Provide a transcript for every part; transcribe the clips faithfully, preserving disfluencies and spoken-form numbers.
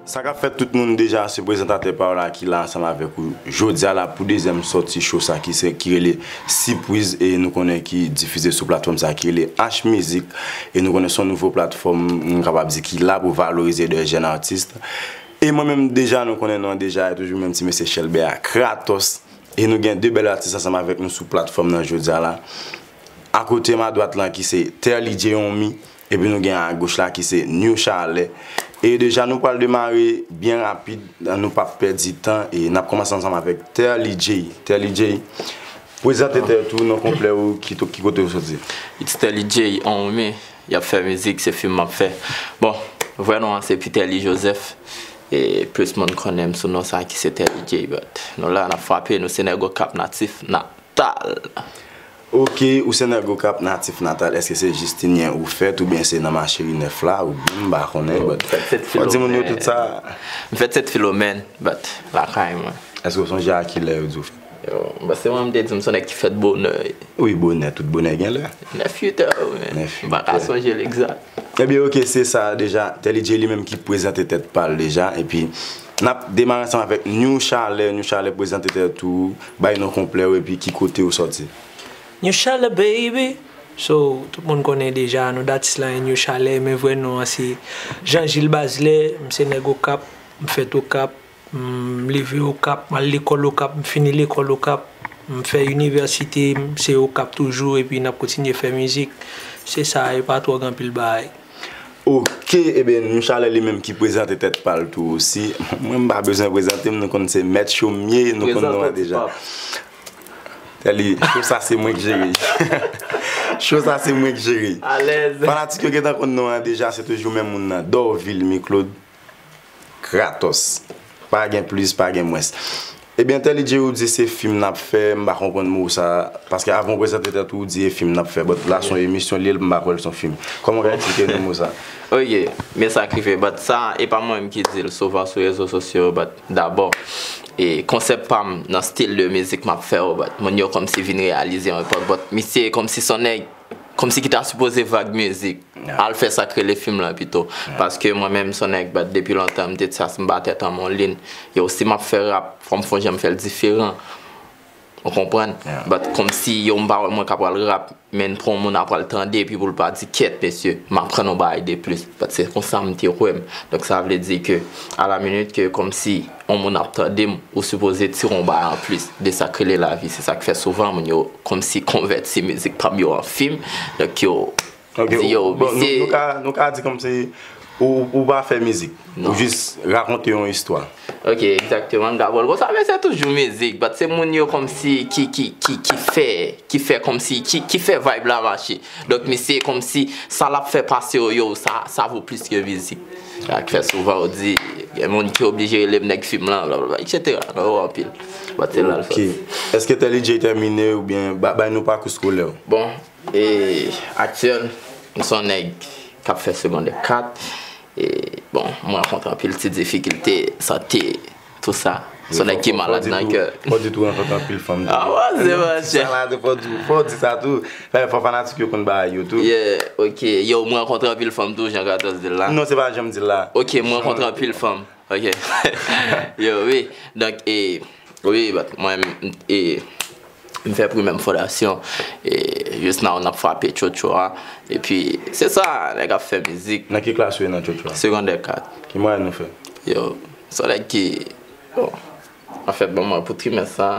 Sa k ap fèt tout moun, deja se prezantatè pa w la ki la ansanm avèk ou jodi a la pou dezyèm sòti show sa ki se, ki rele Sipriz e nou konnen ki difize sou platfòm sa ki rele H Mizik e nou konnen se yon nouvo platfòm, m kapab di ki la pou valorize de jèn atis. E mwen menm deja nou konnen non deja e toujou menm ti mesye Chèlbè a Kratos. E nou gen de bèl atis ansanm avèk nou sou platfòm nan jodi a la. Akote m adwat lan ki se Terly J Onmi, epi nou gen agoch la ki se New Chalè. E deja nou pral demare byen rapid, nou p ap pèdi tan e n ap kòmanse ansanm avèk Terly J. Terly J, prezante tèt ou, non konplè ou, ki, ki kote ou soti? It's Terly J Onmi, y ap fè mizik, se fim m ap fè. Bon, vrè non an se Peterly Joseph, e plis moun konnen m sou non sa ki se Terly J, but nou la, n ap frape, nou se nèg Okap natif, na, tal. Ok, ou se nèg Okap natif natal, èske se jis Tinyen ou fèt oubyen se nan Macheri nèf la oubyen m pa konnen, but fò di moun yo tout sa. M fèt Sent Filomèn, but lakay mwen. Èske w sonje a kilè yo di w fèt? Yo, but se mwen m te di m se yon nèg ki fèt bonè. Wi, bonè, tout bonè gen lè. Nèf uit è, wi, men m pa ka sonje l egzak. Ebyen, ok, se sa deja. Terly J li menm ki prezante tèt pa l deja, epi n ap demare ansanm avèk New Chalè. New Chalè, prezante tèt ou, bay non konplè w epi ki kote ou sòti. New Chalè, baby. So, tout moun konnen deja, non d atis la New Chalè, men vrè non an se Jean Gilles Bazelais, m se nèg Okap, m fèt Okap, m leve Okap, m al lekòl Okap, m fini lekòl Okap, m fè inivèsite, m se Okap toujou, epi n ap kontinye fè mizik. Se sa, e pa twò gen anpil bagay. Ok, ebyen, New Chalè li menm ki prezante tèt pa l tou osi. Mwen, m pa bezwen prezante m, nou konn se Mèt Cho m ye, nou konn non an deja. Terly, show sa se mwen k jere. Show sa se mwen k jere. Alèz. Fanatik yo gentan konn non an deja, se toujou menm moun nan. Dorvil Miklod Kratos. Pa gen plis, pa gen mwens. Ebyen, Terly J ou di se fim n ap fè, m pa konprann mo sa, paske avan w prezante tèt ou, ou di e fim n ap fè, but la se yon emisyon li ye, m pa kwè l se yon fim. Kòman w ka eksplike nou mo sa? Ok, men sa k rive, but sa, e pa mwen menm ki di l, souvan sou rezo sosyo, but dabò, e konsèp pa m nan stil de mizik m ap fè yo, but moun yo kòmsi vin reyalize yon epòk, but misye kòmsi se yon nèg, kòmsi ki ta sipoze vag mizik. Al fè sa k rele fim lan pito. Paske mwen menm, se yon nèg, but depi lontan, m te di sa, si m ba tèt an m yon liy, yo, si m ap fè rap, fò m fè yon jan m fè l diferan. Ou konprann? But kòmsi, yo, m pa wè mwen ka pral rap, men pou yon moun ap pral tande, epi pou l pa di, "Kèt, mesye, m aprann yon bagay de plis." But se konsa m te wè m. Donk, sa vle di ke, a la minit ke, kòmsi, yon moun ap tande m, ou sipoze tire yon bagay anplis de sa k rele lavi. Se sa k fè souvan moun yo kòmsi konvèti mizik pa m yo an fim. Donk yo di yo, bon, nou, misye, nou ka, nou ka di kòmsi ou, ou pa fè mizik. Ou jis rakonte yon istwa. Ok, egzakteman, Gabòl. Konsa, men se toujou mizik. But se moun yo kòmsi ki, ki, ki, ki fè, ki fè kòmsi, ki, ki fè vibe la mache. Donk, misye kòmsi sa l ap fè pase yo, yo, sa, sa vo plis ke mizik. Sa k fè souvan yo di, gen moun ki oblije rele m nèg fim lan, blablabla, etsetera. Non, yo anpil. But se la l sòti. Ok. Èske Terly J tèmine oubyen ba-, bay nou pakou eskolè w? Bon, e, aktyèl, m se yon nèg k ap fè segondè kat. E, bon, mwen rankontre anpil ti difikilte, sante, tou sa. Se yon nèg ki malad nan kè. Fò di tou, fò di tou rankontre anpil fanm tou. Ah, wè, se vre, chè. Sa la, fò di, fò di sa tou. Fò, fò fanatik yo konn bagay yo tou. Yeah, ok. Yo, mwen rankontre anpil fanm tou, jan Kratos di l la. Non, se pa jan m di l la. Ok, mwen rankontre anpil fanm. Ok. Yo, wi. Donk, e, wi, but mwen, e, m fè primè m fondasyon. E, just now, n ap frape tchotcho a. Epi, se sa, nèg ap fè mizik. Nan ki klas ou ye nan tchotcho a? Segondè kat. Ki mwayèn ou fè? Yo, se yon nèg ki, bon, anfèt, bon, mwen, pou trimès sa,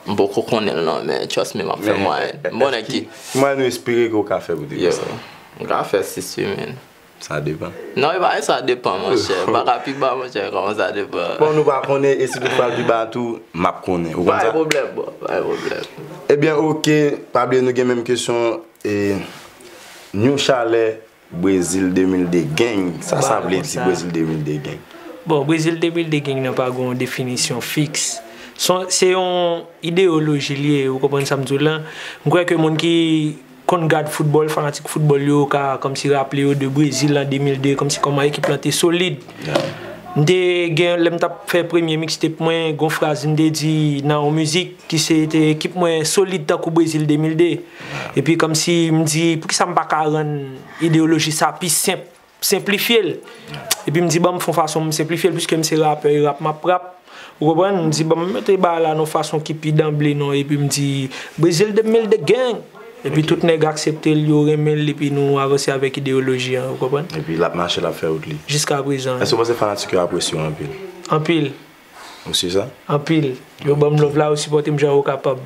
m poko konnen l non, men trust me, m ap fè mwayèn. M bon nèg ki. Ki mwayèn ou espere ke w ka fè pou trimès sa? Yo, m ka fè sis wi, men. Sa depan. Non, e pa sa depan, monchè. M pa ka pi ba, monchè, kòman sa depan? Bon, nou pa konnen, e si toutfwa l pi ba tou, m ap konnen. Ou konn sa? Pa gen pwoblèm, bro, pa gen pwoblèm. Ebyen, ok, pa bliye nou gen menm kesyon, e, New Chalè, Brezil de mil de Gang. Sa, sa vle di Brezil de mil de Gang? Bon, Brezil de mil de Gang nan pa gen yon definisyon fiks. Se yon, se yon ideyoloji li ye, ou konprann sa m di w lan? M kwè ke moun ki konn gad foutbòl, fanatik foutbòl yo ka kòmsi raple yo de Brezil an de mil de, kòmsi kòman ekip lan te solid. M te gen, lè m t ap fè premye mixtape mwen, gon fraz m te di nan yon mizik ki se te ekip mwen solid tankou Brezil de mil de. Epi kòmsi m di, poukisa m pa ka rann ideyoloji sa pi senp? senplifye l. Epi m di, ban m fè yon fason m senplifye l, piske m se rapè, e rap m ap rap. Ou konprann? M di, ban m mete bagay la nan yon fason ki pi danble non, epi m di, Brezil de mil de gang. Epi tout nèg aksepte l, yo renmen l, epi nou avanse avèk ideyoloji an, ou konprann? Epi l ap mache, l ap fè wout li. Jiska prezan. Èske w panse fanatik yo apresye w anpil? Anpil. Ou si sa? Anpil. Yo ban m love la, yo sipòte m jan yo kapab.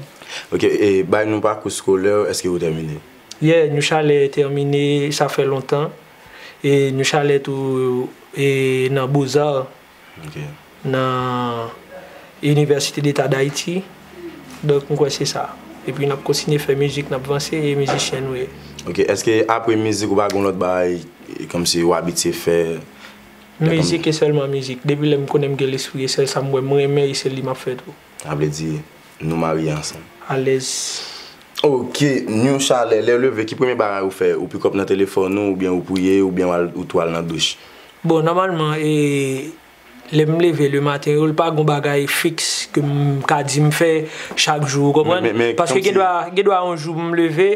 Ok, e bay nou pakou eskolè w, èske ou tèmine? Yeah, New Chalè tèmine, sa fè lontan. E New Chalè tou, e nan Beaux-Arts, Ok. nan Université d'État d'Haïti. Donk, m kwè se sa. Epi n ap kontinye fè mizik, n ap vanse, e mizisyen nou ye. Ok, èske apre mizik ou pa gen lòt bagay, e, kòmsi ou abitye fè? Mizik e sèlman mizik. Depi lè m konnen m gen lespri, e sèl sa m wè m renmen, e se li m ap fè tou. Sa vle di, nou marye ansanm. Alèz. Ok, New Chalè, lè w leve, ki premye bagay ou fè? Ou pick up nan telefòn ou, oubyen ou priye, oubyen w al, ou tou al nan douch? Bon, nòmalman, e, lè m leve le maten, yo, l pa gon bagay fiks ke m ka di m fè chak jou, ou konprann? Men, men, men, Paske gen dwa, gen dwa yon jou m leve,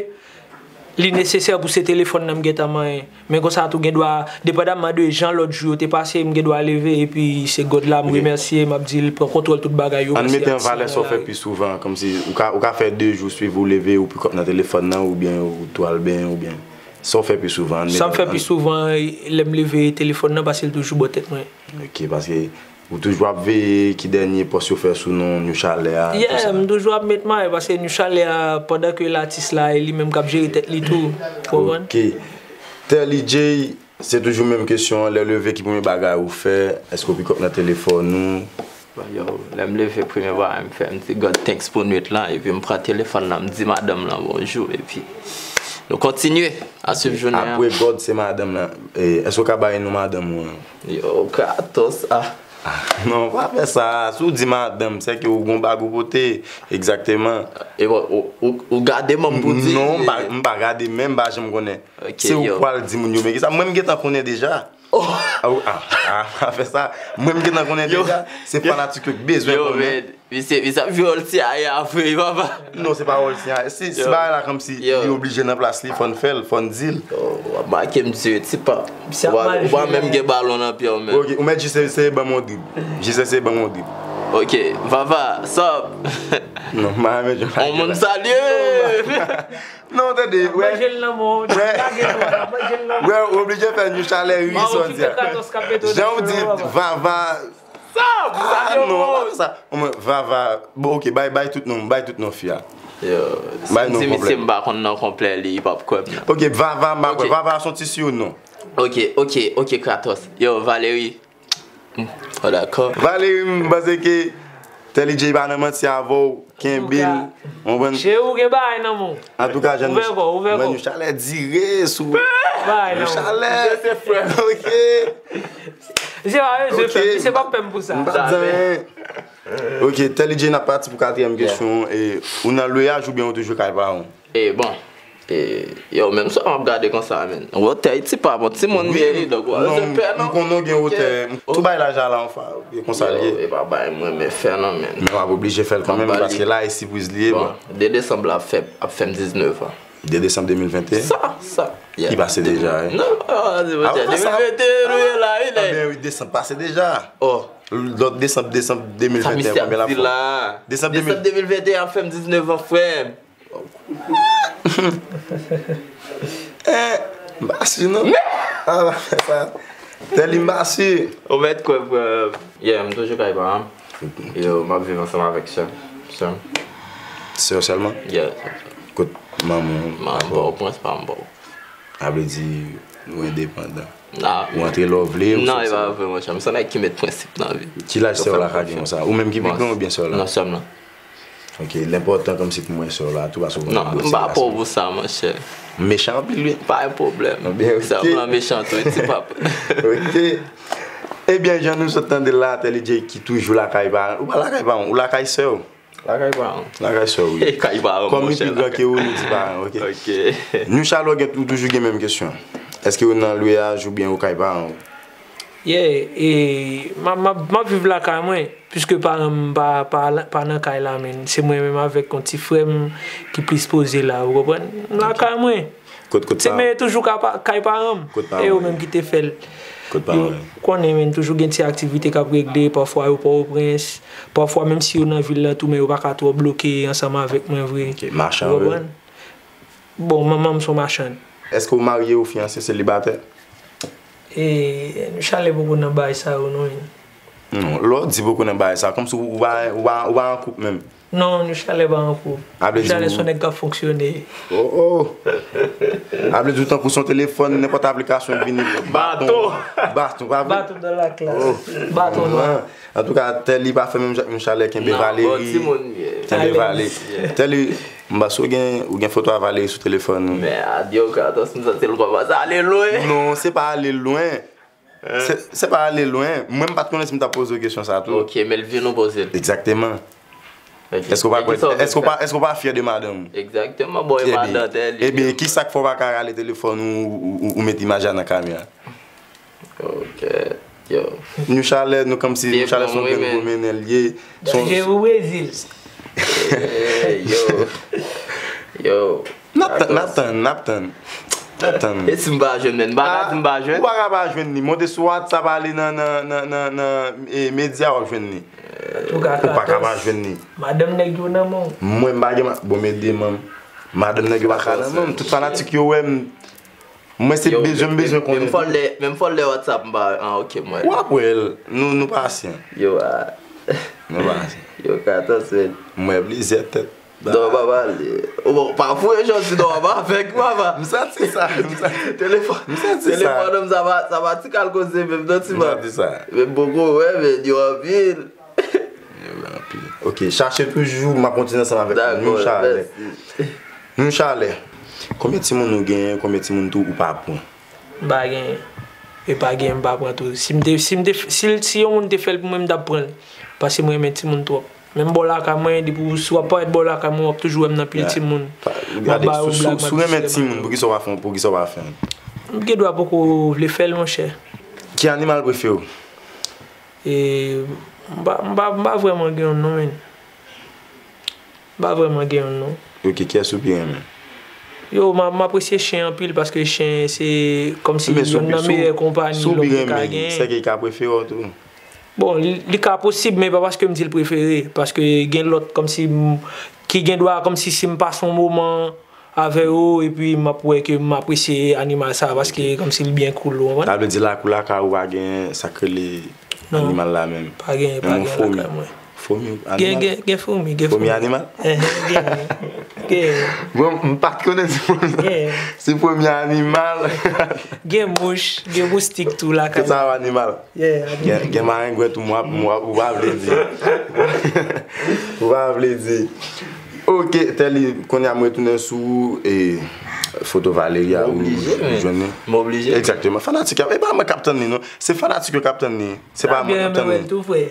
li nesesè pou se telefòn nan m gentan manyen. Men konsa tou gen dwa, depandaman de jan lòt jou yo te pase, m gen dwa leve epi se God la m Ok. remèsye, m ap di l pran kontwòl tout bagay yo, Ann mèsi mete an valè sa w fè pi souvan, kòmsi ou ka, ou ka fè de jou swiv ou leve, ou pick up nan telefòn nan, oubyen ou tou al benyen, oubyen sa w fè pi souvan, ann mete Sa m fè an pi souvan, lè m leve telefòn nan, paske l toujou bò tèt mwen. Ok, paske ou toujou ap veye ki dènye pòs yo fè sou non New Chalè a, Yeah, tousa. m toujou ap met may, paske New Chalè a, pandan ke l atis la, e li menm k ap jere tèt li tou, ou konprann? Ok. Telly J, se toujou menm kesyon an, lè w leve, ki premye bagay ou fè? Èske w pick up nan telefòn ou? Bon, yo, lè m leve, premye bagay m fè, m di God thanks pou nwit lan, epi m pran telefòn nan, m di madanm lan bonjou, epi nou kontinye a swiv jounen an. Apre God, se madanm lan. E, èske w ka bay non madanm ou an? Yo, Kratos, ah. Non, pa fè sa. Si w di madanm, se ke ou gon bag ou pote. Egzakteman. E bon, ou, ou, ou gade manm pou di. Non, m pa, m pa gade, men m pa janm konnen. Ok, Se ou yo. pral di moun yo, men ki sa? Mwen, m gentan konnen deja. Oh. Ah, ou- ah, ah, pa fè sa. Mwen, m gentan konnen Yo. deja. Se Yo. fanatik yo ki bezwen Yo, konnen. men, misye, misye ap jwe wòl CIA vre, papa. Non, se pa wòl CIA. Si, si Yo. bagay la kòmsi Yo. li oblije nan plas li, fò n fè l, fò n di l. Oh, w ap make m di, tipa. Misye ap Ou pa, mal ou pa jwe menm la. gen balon nan pye w, men. Ok, ou mèt jis eseye ban m yon drib. Jis eseye ban m yon drib. Ok, Vava, sup? Non, m pa renmen jwe On bagay moun la. salye! Non, tande, Ap wè. manje l nan men w, Wè. lage l, ap manje l nan men w. Wè, ou oblije fè New Chalè ri, Mawo sa w ki di fè a. Kratos k ap mete w Jan nan w di, cheve, Vava. Sa, Ah, non, pa fè sa. Omwen, Vava. Bon, ok, bay, bay tout non, bay tout non fi a. Yo, si Bay m non di misye konplè. m pa konn non konplè li, li p ap kwè m nan. Ok, Vava, m pa Ok. kwè. Vava, se yon ti surnom. Ok, ok, ok, Kratos. Yo, Valery. Hmm, oh, dakò. Valery, m panse ke Telly J pa nan manti avè w, kenbe l, Antouka, konprann? Cheri, ou gen bagay nan men w. Antouka, jèn Ouvè kò, ouvè mwen kò. Yon chalè dire sou Bagay yon nan men w. chalè. Misye se frè m. Ok. Misye pa bezwen Ok. fè m, misye p ap pè m pou sa. M pa di anyen. Ok, Telly J, n ap pati pou katriyèm Yeah. kesyon. E, ou nan lweyaj oubyen ou toujou kay paran w? E bon, e, yo, menm sa m ap gade konsa, men. Wotè, ti pa bon, ti moun byen li, donk, w ap Non, fè pè, m non? konnen w gen Ok. wotè. M tou bay laj a la, anfen, e konsa l Yo, ye. e pa bay mwen, men fè non, men. Men w ap oblije fè l kanmenm, Anba li. paske la, e sipriz li ye, Bon, bon. de desanm la ap fè, ap fè m diznèf an. de desanm de mil venteyen? Sa, sa. Yeah. Ki pase deja, wi. Non, ah, se Ah, bon, sa. de mil venteyen, nou ye la, wi, Ah, nèg. ben wi, desanm pase deja. Oh. Lòt desanm, desanm Sa de mil venteyen, misye ap konbyen la di fè? la? Desanm de mil. Desanm de mil venteyen ap fè m diznèf an, frè m. Eh, m pa si non. Ah, pa fè sa. Telly, m pa si. Ou mèt kwè, frè. Yeah, m toujou kay paran m. Yo, m ap viv ansanm avèk sè m. Sè m. Sè w sèlman? Yeah. Kot manman w? Manman m pa w prens, pa m pa w. Sa vle di, ou endepandan. Nah. Ou antre lè w vle, ou Non, soti e pa lè w vre, monchè. M se nèg ki met prensip nan vi. Ki laj sè w la ka gen konsa? Ou menm ki pi gran oubyen sè w la? Non, sè m lan. Ok, l enpòtan kòmsi pou mwen sè w la tou, paske w konnen Non, m pa pò pou sa, monchè. Mechan anpil, wi. Pa gen pwoblèm. Ebyen, Sè m ok. lan mechan tou, ti pap. Ok. Ebyen, jan nou sot tande l la, Telly J ki toujou lakay paran l. Ou pa lakay paran w, ou lakay sè w. Lakay paran m. Lakay sè w, wi. Kay paran m, Kòm li monchè, pi gran lakay. ke ou, nou di paran, ok? Ok. New Chalè, ou gen, ou toujou gen menm kesyon. Èske ou nan lweyaj oubyen ou kay paran w? Yeah, e, m ap, m ap, m ap viv lakay mwen, piske paran m pa, pa, pa nan kay la, men. Se mwen menm avèk yon ti frè m ki plis poze la, ou konprann? M lakay mwen. Kot, kot se pa, men toujou ka pa, kay paran m. Kot pa e yo menm ki te fè l. Kot pa yo konnen, men toujou gen ti aktivite k ap regle, pafwa yo Pòtoprens, pafwa menm si yo nan vil la tou, men yo pa ka twò bloke ansanm avèk mwen vre. Ok, machann vre. Ou konprann? Bon, manman m se yon machann. Èske w marye ou fiyanse, selibatè? E, nou chalè poko nan bagay sa yo, non, men. Non, lè w di poko nan bagay sa, kòmsi ou, ou pa, ou pa, ou pa an koup menm. Non, nou chalè pa an koup. A vle di nou chalè se yon nèg k ap fonksyone. Oh, oh. A vle di ou tankou se yon telefòn, nenpòt aplikasyon vini. Baton. Baton, pa vre? Baton dans la classe. Oh. Baton nwa. Antouka, Tèli pa fè menm jan ak nou chalè, kenbe Valérie. Kenbe Valérie. Tèli, m panse ou gen, ou gen foto a Valérie sou telefòn ou. Men adye, Kratos, m santi l kòmanse ale lwen. Non, se pa ale lwen. Se, se pa ale lwen. Mwen, m pa t konnen si m t ap poze w kesyon sa tou. Ok, men l vin ou poze l. Egzakteman. Ok. Èske w pa kwè, èske w pa, èske w pa fyè de madanm ou? Egzakteman, bon, e madan Tèli. Ebyen, ki sa k fè w pa ka rale telefòn ou, ou, ou, ou met imaj la nan kamera? Ok, yo. Nou chalè, nou kòmsi, nou chalè se yon grenn gwo mennen l ye. Danje pou Brezil. Ey, yo. Yo. N ap tann, n ap tann, n ap tann. N ap tann. E si m pa jwenn, men m pa ka di m pa jwenn. Ou pa ka pa jwenn li. Monte sou WhatsApp, ale nan, nan, nan, nan, nan, e, medya, w ap jwenn li. Ou pa ka pa jwenn li. Madanm nèg yo nan men w. Mwen, m pa gen ma-, bon, men demanm. Madanm nèg yo pa ka nan men m. Tout fanatik yo wè m. Mwen, se bezwen, m bezwen konnen tou. Menm fò lè, menm fò lè WhatsApp m pa, ah, ok, mwen. W ap wè l. Nou, nou pasyan. Yo, ah. Nou pasyan. Yo, Kratos, men. Mwen, plizyè tèt. Non, papa, li, bon, pa foure jodi non, papa, avèk papa. M santi sa, m santi. Telefòn, m santi sa. Telefòn, sa pa, sa pa ti kal koze menm, non, ti man. M santi sa. Men poko, wè, men yo anpil. Yo anpil. Ok, chache toujou, m ap kontinye ansanm avèk nou. Dakò, nou chalè. Mèsi. Nou chalè. Konbyen timoun ou genyen, konbyen timoun tou ou pa pran? M pa genyen. E pa genyen, m pa pran tou. Si m te, si m te, si, si yon moun te fè l pou mwen, m t ap pran l. Paske mwen renmen timoun twòp. Menm bò lakay mwen, depi w, si w ap parèt bò lakay mwen, w ap toujou wè m nan pil timoun. M ap ba yo blag, m ap distre bag yo. Si w renmen timoun, poukisa w pa fè, poukisa w pa fè l? M gen dwa poko vle fè l, monchè. Ki animal prefere w? E, m pa, m pa, m pa vrèman gen youn non, men. M pa vrèman gen youn non. Ok, kiyès ou pi renmen? Yo, m, m apresye chen anpil paske chen se kòmsi youn nan meyè konpanyi lòm te ka genyen. Men si w pi renmen, si w pi renmen, sèke l ka prefere w tou? Bon, li, li ka posib, men pa paske m di l prefere. Paske gen lòt kòmsi m, ki gen dwa kòmsi si m pase yon moman avè yo, epi m ap wè ke m apresye animal sa, paske kòmsi l byen cool, ou konprann? Sa vle di lakou lakay ou pa gen sa k rele animal la menm? Non, pa gen, pa gen lakay mwen. Fomi, fomi, animal? Gen, gen, gen fomi, gen fomi. Fomi animal? Enhen, gen, gen. Bon, m pa t konnen si fomi, si fomi animal. Gen mouch, gen moustik tou lakay mwen. Tout sa yo animal. Yeah, gen, gen marengwen tou, mwa, mwa, ou pa vle di. Ou pa vle di. Ok, Tèli, kounye a m retounen sou, e, foto Valeria ou jwenn li. M oblije, men. M oblije. Egzakteman. Fanatik yo, e pa mwen k ap tann li, non. Se fanatik yo k ap tann li. Se pa mwen k ap tann li. Tou frè.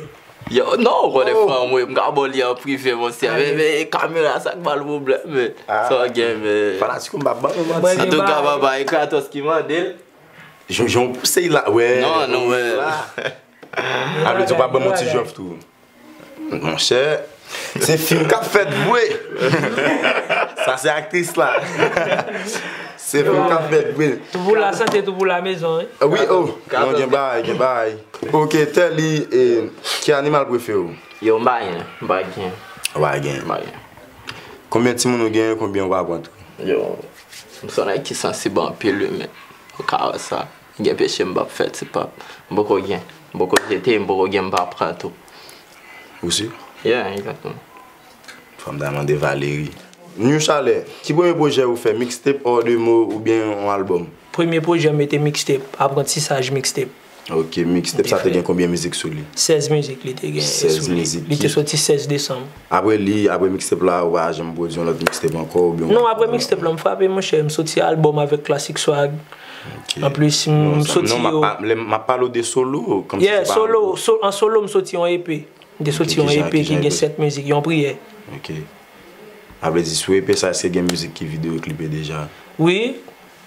Yo, non, ou konnen fanm, wi, m ka ba w li an prive, monchè. Men, men, kamera, sa k ba l pwoblèm, men. Sa w gen, men. Fanatik yo, m pa ban yo manti. Antouka, papa, e Kratos ki mande l. Jan, jan w pouse l la, wè. Non, non, wè. A vle di w pa ban m yon ti jòf tou. Monchè, se fim k ap fèt vre. Sa se aktris la. Se fim k ap fèt vre. Tout pou la santé, tout pou la maison, wi. Wi, oh, non, gen bagay, gen bagay. Ok, Tèli, e, ki animal prefere w? Yo, m pa gen, m pa gen. Ou pa gen? M pa gen. Konbyen timoun ou gen, konbyen ou pa pran tou? Yo, m se yon nèg ki sansib anpil, wi, men ou ka wè sa. Gen peche m p ap fè, ti pap. M poko gen. M poko jete, m poko gen, m pa pran tou. Ou si? Yeah, egzakteman. Fò m ta mande Valerie. New Chalè, ki premye pwojè ou fè? Mixtape, hors de mots oubyen yon albòm? Premye pwojè m te mixtape, Aprantisaj mixtape. Ok, mixtape sa te gen konbyen mizik sou li? Sèz mizik li te gen sou li. Sèz mizik. Li te soti sèz desanm. Apre li, apre mixtape la, ou pa janm pwodui yon lòt mixtape ankò oubyen? Non, apre mixtape la, m frape, monchè, m soti albòm avèk Classic Swag. Ok. Anplis, m soti yo. Non, m ap pale w de solo, kòmsi se pa albòm. Yeah, solo, an solo, m soti yon EP. M te soti yon EP ki gen sèt mizik, yon priyè. Ok. A vle di, sou EP sa, èske gen mizik ki videyo klipe deja? Wi.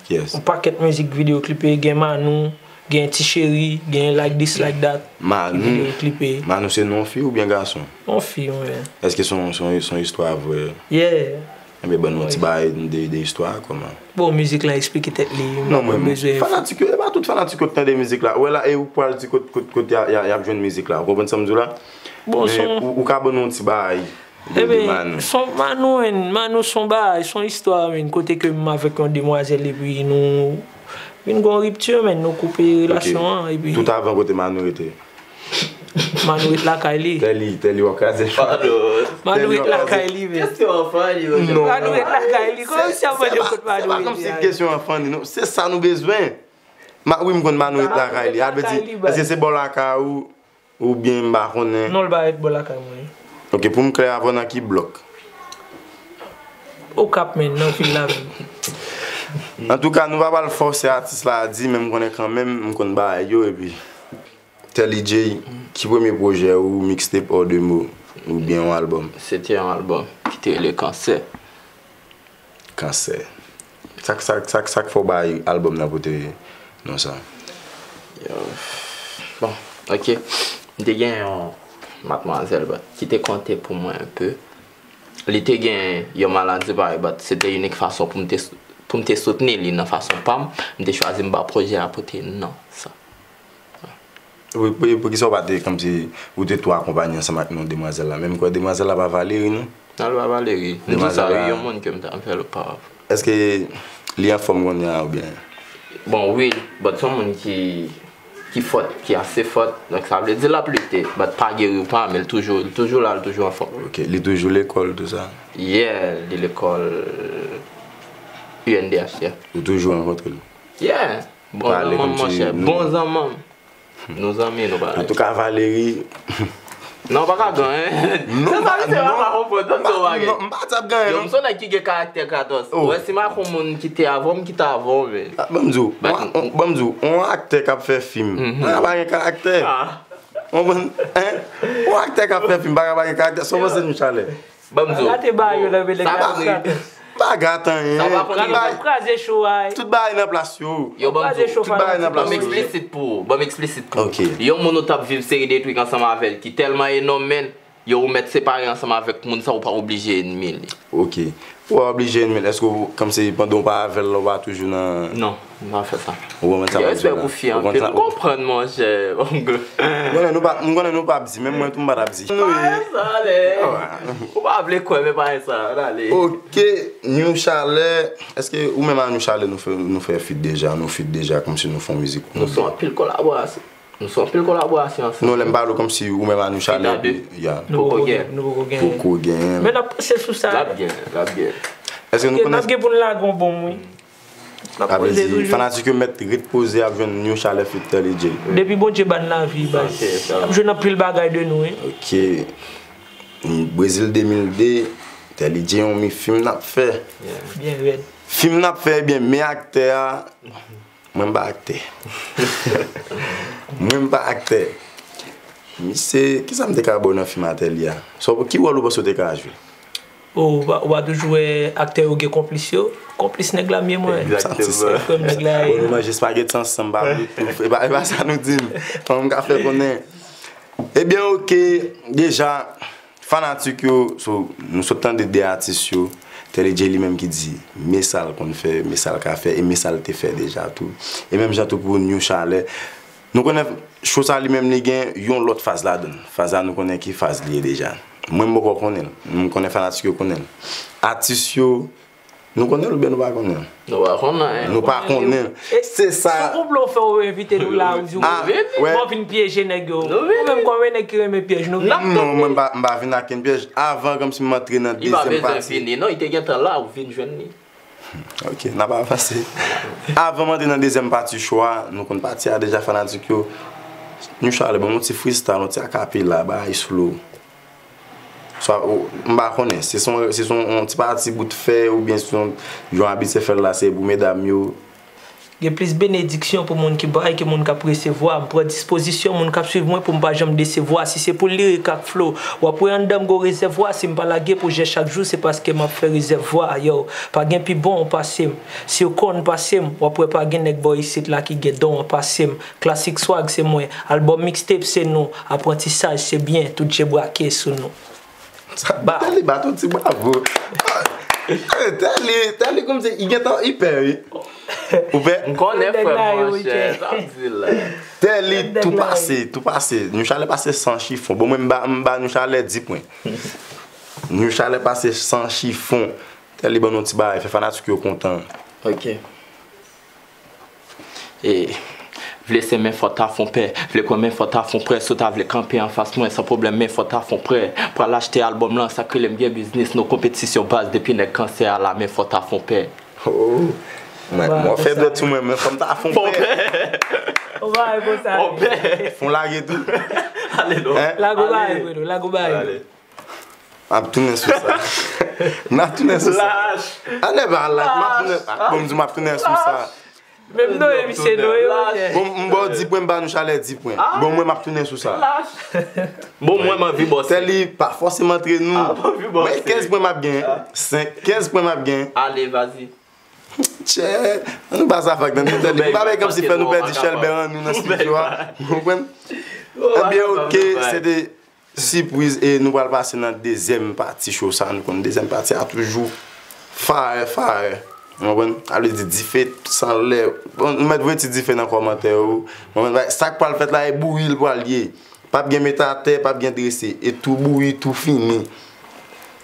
Kiyès? Yon pakèt mizik videyo klipe, gen Manou, gen Ti Cheri, gen Like This, Like That. Manou. Ki videyo klipe. Manou se non fi oubyen gason? Yon fi, wi. Èske se yon, se yon, se yon istwa vrè? Yeah. Enben, ban nou yon ti bagay de, de istwa a, kòman? Bon, mizik la eksplike tèt li. Non, mwen, fanatik yo, e pa tout fanatik yo k tande mizik la. Ou wè la, e ou pral di kot, kot, kot y a, y a, y ap jwenn mizik la. Ou konprann sa m di w la? Bon, men ou, ou ka ban nou yon ti bagay de, de Manou. Son Manou, Manou son bagay, son istwa, kote ke m avèk yon demwazèl epi nou vin gen yon ripti, men nou koupe relasyon an, epi. Tout avan, kote Manou rete? Manou ret lakay li. Tèli, Tèli, w ap kraze chwa. Manou ret lakay li, men. Kesyon an funny, wi. Non. Manou ret lakay li. Kòman si ap mande kot Manou ret li? Se pa kòmsi kesyon an funny, non. Se sa nou bezwen. Wi, m konn Manou ret lakay li. A vle di, èske se bò lakay ou, oubyen m pa konnen? Non, l pa ret bò lakay mwen. Ok, pou m klè avè w, nan ki blòk? Okap, men, nan vil la menm. Antouka, nou pa pral fòse atis la a di, men m konnen kanmenm, m konn bagay yo, epi. Tèli Jay, ki premye pwojè ou, mixtape hors de mots, oubyen yon albòm? Se te yon albòm ki te rele Kansè. Kansè. Sa k, sa k, sa k, sa k fè w bay albòm nan pote non sa? Yo, bon, ok. M te gen yon matmwazèl, but, ki te konte pou mwen enpe. Li te gen yon maladi parèy, but, se te inik fason pou m te, pou m te soutni li nan fason pa m. M te chwazi m ba pwojè a pote non sa. Wi, pou, poukisa w pa te, kòmsi, ou te tou akonpaye ansanm ak non demwazèl la? Men m kwè demwazèl la pa Valery, non? Non, li pa Valery. M di sa, wi, yon moun ke m t ap fè l oparavan. Èske li anfòm kounye a, oubyen? Bon, wi, but se yon moun ki, ki fòt, ki ase fòt. Donk, sa vle di l ap lite, but pa geri ou pa, men l toujou, l toujou la, l toujou anfòm. Ok, li toujou lekòl, tou sa? Yeah, li lekòl U N D H, yeah. Ou toujou rankontre l? Yeah. Bon zanmanm, monchè. Bon zanmanm. Nou zanmi, nou pa. Antouka, Valery. Non, w pa ka gen anyen. Se sa, misye pa ka konprann, tann se yon bagay. Non, m pa t ap gen anyen, non. Yo, m se yon nèg ki gen karaktè katòz. Ou wè, si m ak yon moun ki te avè w, m kite avè w, men. Ban m di w, ban m di w, yon aktè k ap fè fim, pa ka pa gen karaktè. Ou konprann? Yon aktè k ap fè fim, pa ka pa gen karaktè. Sa w panse, Newchalè? Ban m di w. Rate bagay yo nan men nèg la. Sa pa vre. M pa gate anyen. Sa w pa konn. Kraze cho a. Tout bagay nan plas yo. Yo, ban m di w. Tout bagay nan plas yo. Ban m eksplisit pou ou. Ban m eksplisit pou ou. Ok. Yon moun ou t ap viv seri de twik ansanm avè l ki tèlman enòm, men, yo, ou mèt separe ansanm avèk moun sa, ou pa oblije enmi li. Ok. Ou pa oblije enmi l. Èske w, kòmsi pandan w pa avè l la, w pa toujou nan. Non. M pa fè sa. Ou konprann sa m ap di w la? Gen respè pou fi anpil. Ou konprann, monchè. M konnen nou p ap, m konnen nou p ap di, menm mwen tou m pa t ap di. Parèy sa, ale. Ou pa vle kwè, men parèy sa, ale. Ok, New Chalè, èske ou menm ak New Chalè nou fè, nou fè feat deja, nou feat deja, kòmsi nou fè yon mizik? Nou fè anpil kolaborasyon. Nou fè anpil kolaborasyon ansanm. Non, lè m pale w kòmsi ou menm ak New Chalè, epi, ya. Nou poko gen. Nou poko gen. Poko gen. Men n ap panse sou sa. L ap gen, l ap gen. Èske nou konnen? N ap gen pou n lage yon bonm, wi. Sa vle di, fanatik yo mèt ret poze ap jwenn New Chalè feat Tèlidje. Depi Bondye ba n lavi, baz. N ap jwenn anpil bagay de nou, wi. Ok. Brezil de mil de, Tèlidje yon mi fim n ap fè. Byen rèd. Fim n ap fè, ebyen, men aktè a, mwen m pa aktè. Mwen m pa aktè. Misye, kisa m te ka ba w nan fim a Tèli a? Sa w, ki wòl ou panse w te ka jwe? Oh, ou pa, ou pa toujou wè aktè yo gen konplis yo? Konplis nèg la m ye mwen. Egzakteman. Frè m nèg la ye. Bon, nou manje espageti ansanm, pa bliye tou. E pa, e pa sa nou di m. Fò m ka fè konnen. Ebyen, oke, deja, fanatik yo, so, nou sot tande de atis yo, Tèlidje li menm ki di, men sa l konn fè, men sa l ka fè, e men sa l te fè deja tou. E menm jan tou pou New Chalè. Nou konnen cho sa li menm li gen yon lòt faz ladan l. Faz la nou konnen ki faz li ye deja. Mwen m poko konnen l. M konnen fanatik yo konnen l. Atis yo, nou konnen l oubyen nou pa konnen l? Nou pa konnen. Nou pa konnen l. Se sa. Se konplo w fè w envite nou la, ou di w, bon, vin pyeje nèg yo. Ou menm kòm yon nèg ki renmen pyèj, nou vin. Non, mwen m pa, m pa vin ak kenn pyèj. Avan, kòmsi m antre nan dezyèm pati. Li pa bezwen vini, non, li te gentan la, ou vin jwenn li. Ok, n ap avanse. Avan m antre nan dezyèm pati cho a, nou konn pati a deja, fanatik yo. New Chalè, ban m yon ti freestyle, yon ti akapela, bagay slow. Swa, ou, m pa konnen, se son, se son, yon ti pati bout fè, oubyen se yon, jan w abitye fè l la, se pou medam yo. Gen plis benediksyon pou moun ki bay ke moun k ap resevwa. M pran dispozisyon moun k ap swiv mwen pou m pa janm desevwa. Si se pou lirik ak flo, w ap wè anndan m gon rezèvwa. Si m pa lage pwojè chak jou, se paske m ap fè rezèvwa. Yo, pa gen pi bon pase m. Si w konn pase m, w ap wè pa gen nèg bò isit la ki gen don an pase m. Klasik swag se mwen, albòm mixtape se nou, aprantisaj se byen, tout je brake sou nou. Sa, Tèli bat yon ti bravo. Eh, Tèli, Tèli kòmsi li gentan, li pè, wi. Ou pè? M konnen frè m, monchè, sa m di la. Tèli tou pase, tou pase. Nou chalè pase san chifon. Bon, mwen, m ba, m ba nou chalè di pwen. Nou chalè pase san chifon. Tèli ban nou ti bagay, fè fanatik yo kontan. Ok. E, vle se men fò ta fon pè, vle kwè men fò ta fon prè, si w ta vle kanpe anfas mwen san pwoblèm men fò ta fon prè. Pral achte albòm lan, sa k rele m gen biznis, no konpetisyon baz, depi nèg kansè a la men fò ta fon pè. Oh. Mwen, mwen fè dwèt sou mwen, men fò m ta fon pè. Fon pè. Fon lage tou. Ale non. Lago bagay, Fredo, lago bagay. M ap tounen sou sa. M ap tounen sou sa. Lach. Anè ba lach, m ap tounen. Bon, m di m ap tounen sou sa. Menm non, e misye non, e monchè. Bon, m ba w di pwen, m ba nou chalè di pwen. Bon, mwen, m ap tounen sou sa. Bon, mwen, m anvi bòse. Tèli pa fòseman antre nou. Mwen, kenz pwen m ap gen. Senk, kenz pwen m ap gen. Ale, vazi. Tchè, ann nou pa sa fak nan Tèli. M pa bay kòmsi fè nou pèdi chèlbè an nou nan estidyo a. Ou konprann? Ebyen, ok, se te sipriz, e nou pral pase nan dezyèm pati cho sa. Nou konn dezyèm pati a toujou fire, fire. Ou konprann? Sa vle di dife san lè. Bon, nou mèt voye ti dife nan kòmantè yo. Ou konprann? Sa k pral fèt la, e bouyi l pral ye. P ap gen mete atè, p ap gen drese. E tou bouyi, tou fini.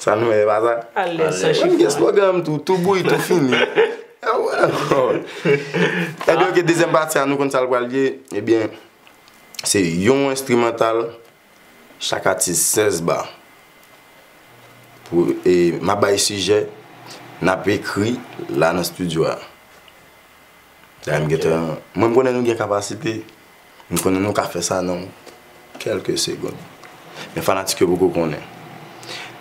Sa nou wè, e pa sa? Alèz san chifon. Mwen gen slogan m tou, tou bouyi, tou fini. Ebyen, ok, dezyèm pati a, nou konn sa l pral ye. Ebyen, se yon enstrimantal. Chak atis sèz ba. Pou, e, m ap bay sijè, n ap ekri la nan estidyo a. Dayè m gentan, mwen m konnen nou gen kapasite, m konnen nou ka fè sa nan kèlke segonn. Men fanatik yo poko konnen.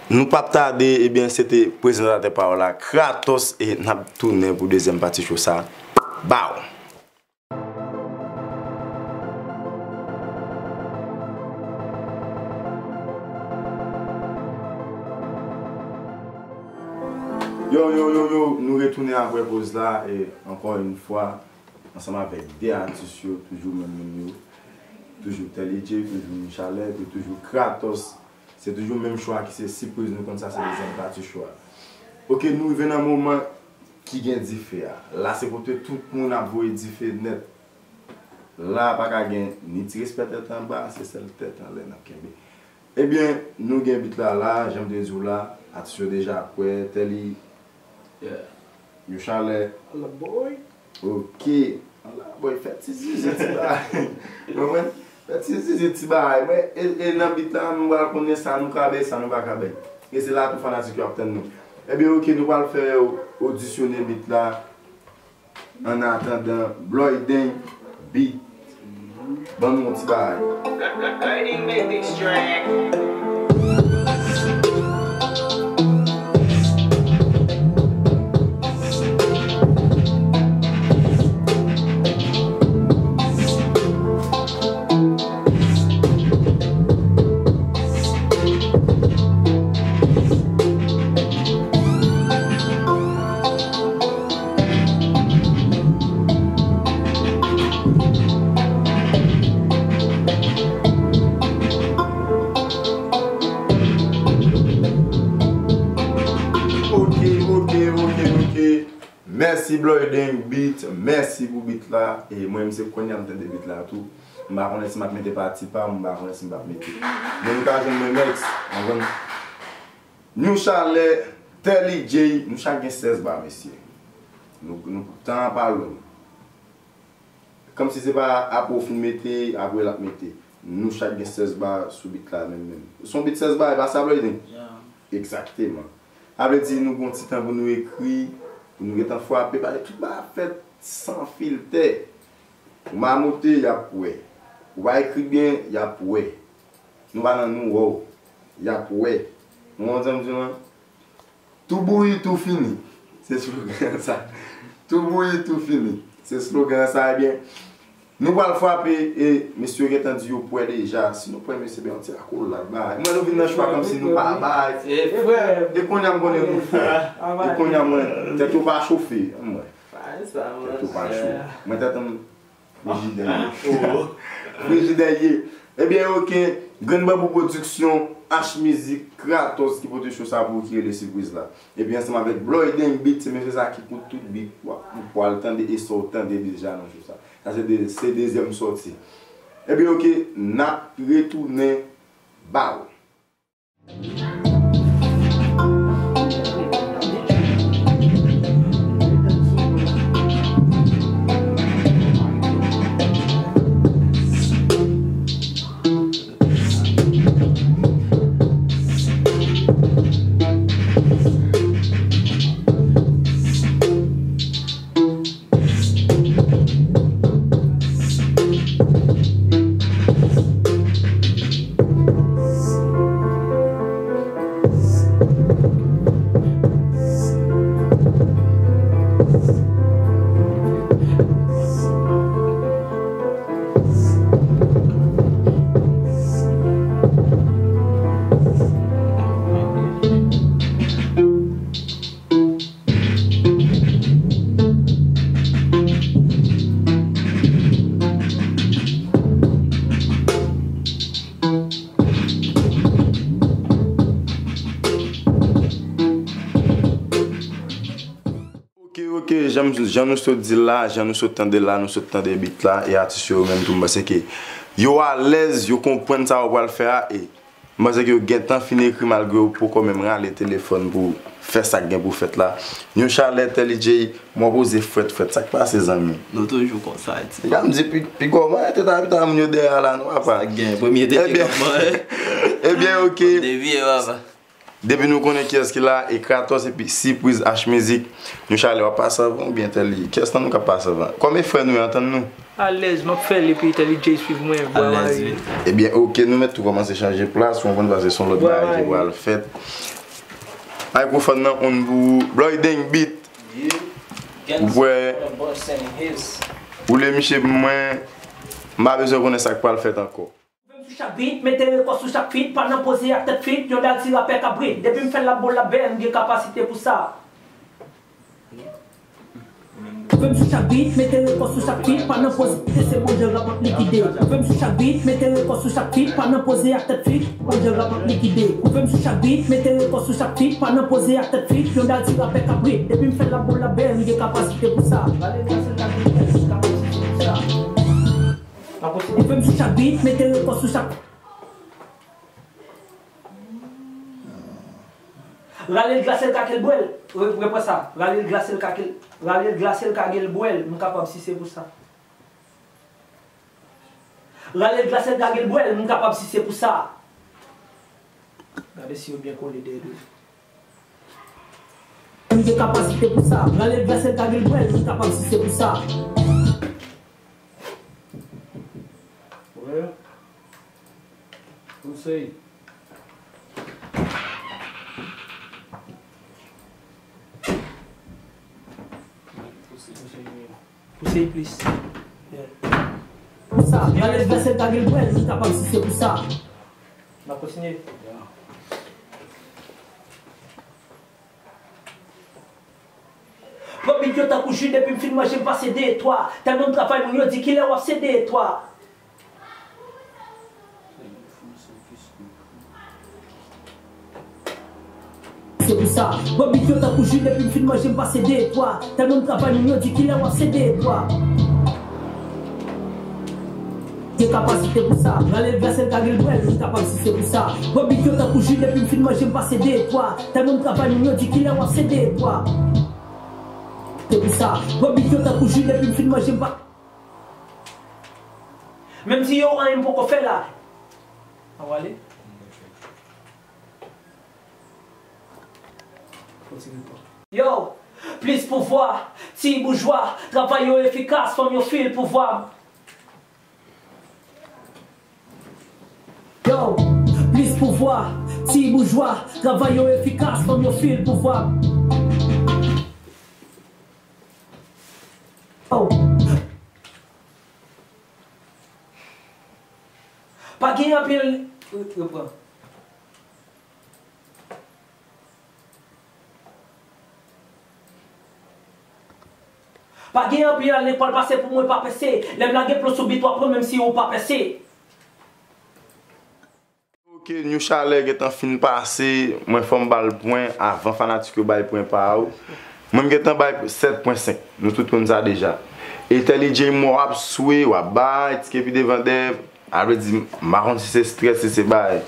Nou p ap tade, ebyen, se te prezantatè pa w la, Kratos, e n ap tounen pou dezyèm pati cho sa. Bow! Yo, yo, yo, yo, nou retounen apre poz la, e ankò yon fwa, ansanm avèk de atis yo, toujou menm moun yo, toujou Tèli J, toujou Michalè, e toujou Kratos. Se toujou menm cho a ki se sipriz, nou konn sa se dezyèm pati cho a. Ok, nou rive nan moman ki gen dife a. La se kote tout moun ap voye dife nèt. La pa ka gen ni ti respè tèt anba, se sèl tèt anlè n ap kenbe. Ebyen, nou gen bit la la, jan m te di w la, atis yo deja prè, Tèli, Michalè. Ala boy. Ok. Ala boy, fè ti zizi ti bagay. Ou konprann? Fè ti zizi ti bagay. Mwen, e, e nan bit la, nou pral konnen sa nou ka bay, sa nou pa ka bay. E se la tou fanatik yo ap tann nou. Ebyen, ok, nou pral fè yo odisyonnen bit la. An atandan, Bloyden Beat. Ban nou yon ti bagay. Ok, ok, ok, ok. Mèsi Bloyden Beat, mèsi pou beat la. E mwen menm se kounye a m tande beat la tou. M pa konnen si m ap mete pati pa m, m pa konnen si m p ap mete. Men nou ka jwenn mwen next, ou konprann? New Chalè, Tèli J, nou chak gen sèz ba, mesye. Nou, nou, tan an pa long. Kòmsi se pa apre w fin mete, apre l ap mete. Nou chak gen sèz ba sou beat la menm menm. Se yon beat sèz ba, e pa sa, Bloyden? Egzakteman. Sa vle di nou gen yon ti tan pou nou ekri, pou nou gentan frape, paske tout bagay ap fèt san filtè. Ou mamoute, y ap wè. Ou pa ekri byen, y ap wè. Nou pa nan nou wè w. Y ap wè. Ou konprann sa m di w lan? Tou bouyi, tou fini. Se slogan sa. Tou bouyi, tou fini. Se slogan sa, ebyen. Nou pral frape, e mesye yo gentan di yo prè deja. Si nou prè, mesye, ben, yon ti akolad, bay. Mwen, nou vin nan cho a kòmsi nou pa bay. E kounye a, m konnen nou fò. E kounye a, mwen, tèt yo pa chofe. Mwen. Tèt yo pa cho. Mwen, tèt m frijidè ye. Frijidè ye. Ebyen, oke, Grenn Banbou Pwodiksyon, H Mizik, Kratos ki pote cho sa pou ou ki rele Sipriz la. Epi ansanm avèk Bloyden Beat, se mesye sa ki pou tout beat, w ap, w pral tande e sa w tande deja nan cho sa. Sa se de, se dezyèm sòti. Ebyen, oke, n ap retounen ba ou. Oke, oke, jan, jan nou sot di l la, jan nou sot tande l la, nou sot tande beat la, e atis yo menm tou, m panse ke yo alèz, yo konprann sa yo pral fè a, e m panse ke yo gentan fin ekri malgre yo poko menm rale telefòn pou fè sa k gen pou fèt la. Yon chalè, Telly J, mwen poze frèt, frèt, sa k pase, zanmi? Nou toujou konsa, ti. Gade m di, pi, pi kòman, tèt a pita moun yo dèyè a la, non, papa? Sa k gen, premye tete k ap manje. Ebyen, oke. Devye, papa. Depi nou konnen kiyès ki la, e Kratos epi Sipriz H Mizik, nou chale w ap pase anvan oubyen Telly? Kiyès nan nou k ap pase anvan? Kòm e frè nou yo, antann nou. Alèz, m ap fè l epi Telly J swiv mwen, bwa mari. Alèz, wi. Ebyen, oke, nou mèt tou kòmanse chanje plas, ou konprann, paske se yon lòt bagay ki pral fèt. Mikrofòn nan on pou ou, Bloyden Beat. Ou wè, ou le miche pou mwen, m pa bezwen konnen sa k pral fèt ankò. Ou vle m sou chak beat, mete rekò sou chak feat, pa nan poze ak tèt fit, yon dal ti rapè kabrit. Depi m fè l l ap bo l ap bèl, m gen kapasite pou sa. Ou vle m sou chak beat, mete rekò sou chak feat, pa nan poze, se Bondye rap ap likide. Ou vle m sou chak beat, mete rekò sou chak feat, pa nan poze ak tèt fit, Bondye rap ap likide. Ou vle m sou chak beat, mete rekò sou chak feat, pa nan poze ak tèt fit, yon dal ti rapè kabrit. Depi m fè l ap bo l ap bèl, m gen kapasite pou sa. Rale glase l ka gen bèl, m kapasite pou sa. Ou vle m sou chak beat, mete rekò sou chak. Rale l glase l ka ke l bwè l. Re-, repran sa. Rale l glase l ka ke l, rale l glase l ka ke l bwè l. M kapab si se pou sa. Rale l glase l ka ke l bwè l. M kapab si se pou sa. Gade si yo byen kole dèyè dlo. M gen kapasite pou sa. Rale l glase l ka ke l bwè l. M kapab si se pou sa. Wè. Konsèy. Pouse plis. Pou sa, rale l glase l ka ke l bwè l, m kapab si se pou sa. N ap kontinye. Pran bit yo tankou ji, depi m fin manje, m pase de twa. Tèlman m travay, moun yo di, "Kilè w ap sede twa?" Se pou sa, pran bit yo tankou ji, depi m fin manje, m pase de twa. Tèlman m travay, moun yo di, "Kilè w ap sede twa?" Gen kapasite pou sa. Rale l glase l ka ke l bwè l, m kapab si se pou sa. Pran bit yo tankou ji, depi m fin manje, m pase de twa. Tèlman m travay, moun yo di, "Kilè w ap sede twa?" Se pou sa. Pran bit yo tankou ji, depi m fin manje, m pa. Menm si yo anyen m poko fè la. An w ale. Yo, plis pouvwa, ti boujwa, travay yo efikas, fanm yo fil pouvwa. Yo, plis pouvwa, ti boujwa, travay yo efikas, fanm yo fil pouvwa. Yo. Pa gen anpil, repran. Pa gen anpil lekòl pase pou mwen pa pèse. Lè m lage plon sou bit w ap pran menm si ou pa pèse. Ke New Chalè gentan fin pase, mwen fò m ba l pwen avan fanatik yo bay pwen pa yo. Mwen m gentan bay sèt pwen senk. Nou tout konn sa deja. E Telly J mò ap swe, w ap bay, ti kepi devan dèyè. A vle di, m pa konn si se strès, si se bay.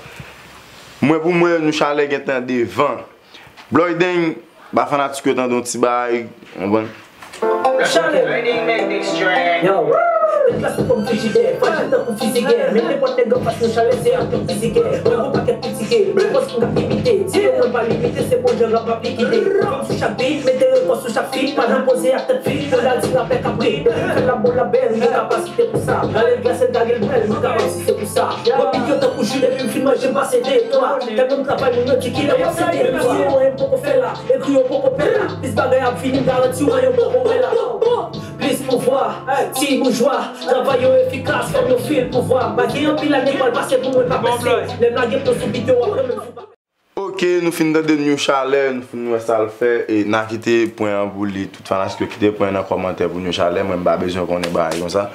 Mwen pou mwen, New Chalè gentan devan. Bloy Deng, ba fanatik yo tande yon ti bay, w konprann? Chalè. Yo, tèt la sou kòm frijidè, frajil tankou fizigè. Men nenpòt nèg anfas nou chalè, se ak yon fizigè. Mwen gon pakèt pitigè, men pòs m ka imite. Di yo mwen pa limite, se bon jan rap ap likide. Fanm sou chak bit, mete rekò sou chak feat. Pa nan poze ak tèt fik, pou la di rapè kaprit. Fè la bon la bèl, nou kapasite pou sa. Rale glas, el gage l bèl, nou kapab si se pou sa. Mwen pik yo tankou jus, depi m fin manje, m pase de twa. Tèlman m travay, moun yo di kilè w ap site. Ekri yo, m poko fè la. Ekri yo poko pè la. Plis bagay ap vini, m garanti w, yo poko wè la. Plis pouvwa, ti boujwa. Travay yo efikas, fanm yo fil pouvwa. Pa gen anpil ane k pral pase pou mwen pa pèse. Lè m lage pwen sou bit yo, w ap renmen m sou pa. Ok, nou fin tande New Chalè, nou fin wè sa l fè, e n a kite pwen an pou li. Tout fanatik yo kite pwen nan kòmantè pou New Chalè, mwen m pa bezwen konnen bagay konsa.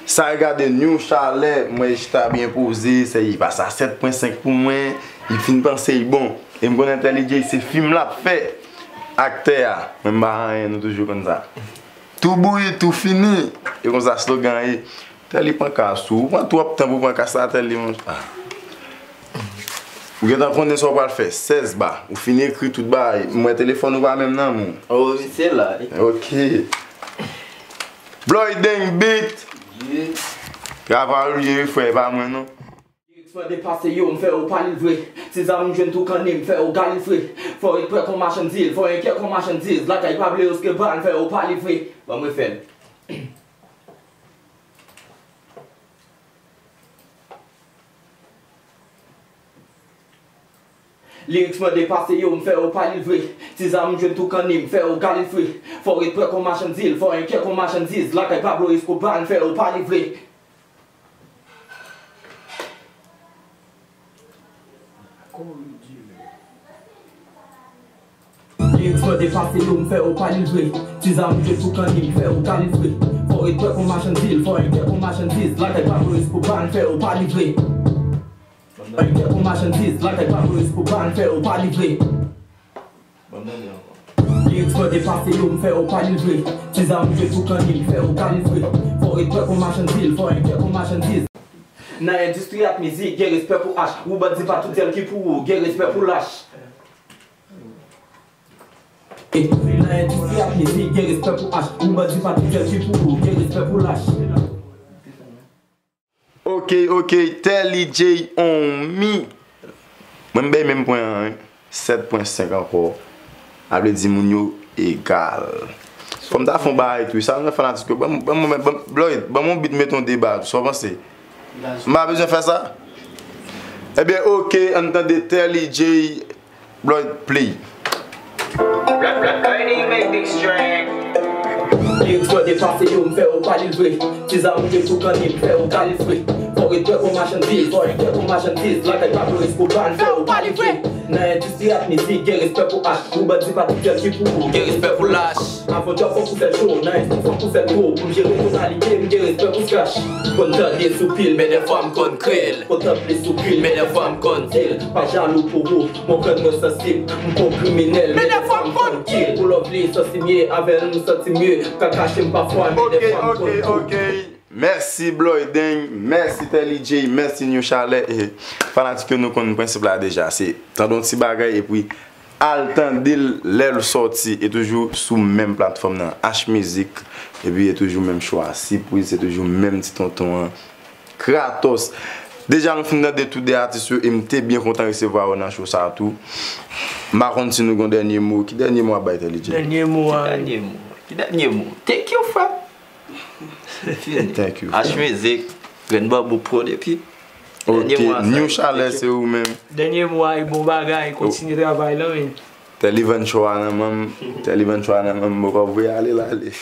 Sa regade New Chalè, mwen chita byen poze, se li pase a sèt pwen senk pou mwen, li fin panse li bon. E m konnen Telly J se fim l ap fè. Aktè a, mwen m pa anyen, nou toujou konn sa. Tou bouyi, tou fini. E konsa slogan ye. Telly pran kas ou. Ou pran twòp tan pou pran kas la, Telly, mon. Ah. Ou gentan konnen sa w pral fè. Sèz ba. Ou fin ekri tout bagay. M wè telefòn ou pa menm nan men w. Oh, wi, se la, wi. Ok. Bloy Deng beat. Yeah. Travay ou ye, wi, frè, e pa mwen, non. Lirik mwen depase yo, m fè yo pa li vre. Ti zam m jwenn tou kanni, m fè yo galifre. Fò ret prè kon machann zil, fò enkyè kon machandiz. Lakay pa vle yo ske ba, m fè yo pa li vre. Ban m refè l. Lirik mwen depase yo, m fè yo pa li vre. Ti zam m jwenn tou kanni, m fè yo galifre. Fò ret prè kon machann zil, fò enkyè kon machandiz. Lakay Pablo Escobar, m fè yo pa li vre. Lirik mwen depase yo, m fè yo pa li vre. Ti zam m jwenn tou kanni, m fè yo galifre. Fò ret prè kon machann zil, fò enkyè kon machandiz. Lakay Pablo Escobar, m fè yo pa li vre. Enkyè kon machandiz, lakay Pablo Escobar, m fè yo pa li vre. Ban m tande ankò. Lirik mwen depase yo, m fè yo pa li vre. Ti zam m jwenn tou kanni, m fè yo galifre. Fò ret prè kon machann zil, fò enkyè kon machandiz. Nan endistri ak mizik, gen respè pou H. Ou bandi pa tout sèl ki pou ou, gen respè pou lach. Nan endistri ak mizik, gen respè pou H. Ou bandi pa tout sèl ki pou ou, gen respè pou lach. Ok, ok, Telly J on me. Mwen m bay menm pwen an, wi. Sèt pwen senk ankò. A vle di moun yo egal. Fò m ta fè yon bagay tou. Sa nan fanatik yo. Ban m, ban m, ban m, Bloy, ban m yon beat, mete yon deba tou. Sa w panse? M pa bezwen fè sa? Ebyen, ok, ann tande Telly J. Bloy, play. Lirik mwen depase yo, m fè yo pa li vre. Ti zam m jwenn tou kanni, m fè yo galifre. Fò ret prè kon machann zil, fò enkyè kon machandiz. Lakay Pablo Escobar, m fè yo pa li vre. Nan endistri ak mizik, gen respè pou H. Ou bandi pa tout sèl ki pou ou, gen respè pou lach. Avan djòb fòk ou fè l cho, nan endistri fòk ou fè l gwo. Pou m jere tonalite m, gen respè pou scratch. Konn tande sou pil, men dèfwa m konn kreye l. Kontan plis sou pil, men dèfwa m konn di l. Pa jalou pou ou, konprann mwen sansib, m pa yon kriminèl, men dèfwa m konn kill. Pou love li, santi m ye, avè l m santi m ye, m ka kache m pafwa, men dèfwa m konn tou. Ok, ok, ok. Mèsi Bloy Deng, mèsi Telly J, mèsi New Chalè. E fanatik yo, nou konn prensip la deja, se tande yon ti bagay epi al tande l lè l sòti, e toujou sou menm platfòm nan, H Mizik, epi e toujou menm chwa, sipriz, se toujou menm ti tonton an. Kratos. Deja nou fin tande tout de atis yo e m te byen kontan resevwa yo nan show sa a tou. M pa konn si nou gen dènye mo. Ki dènye mo w ap bay Telly J? Dènye mo a. Ki dènye mo? Ki dènye mo? Thank you, frè. Fini. Thank you, frè. H Mizik, Grenn Banbou Prod epi dènye mo a, New Chalè, se ou menm. Dènye mo a, bon bagay, kontinye travay la, men. Telly vann cho a nan men m, Telly vann cho a nan men m, m poko voye ale l ale.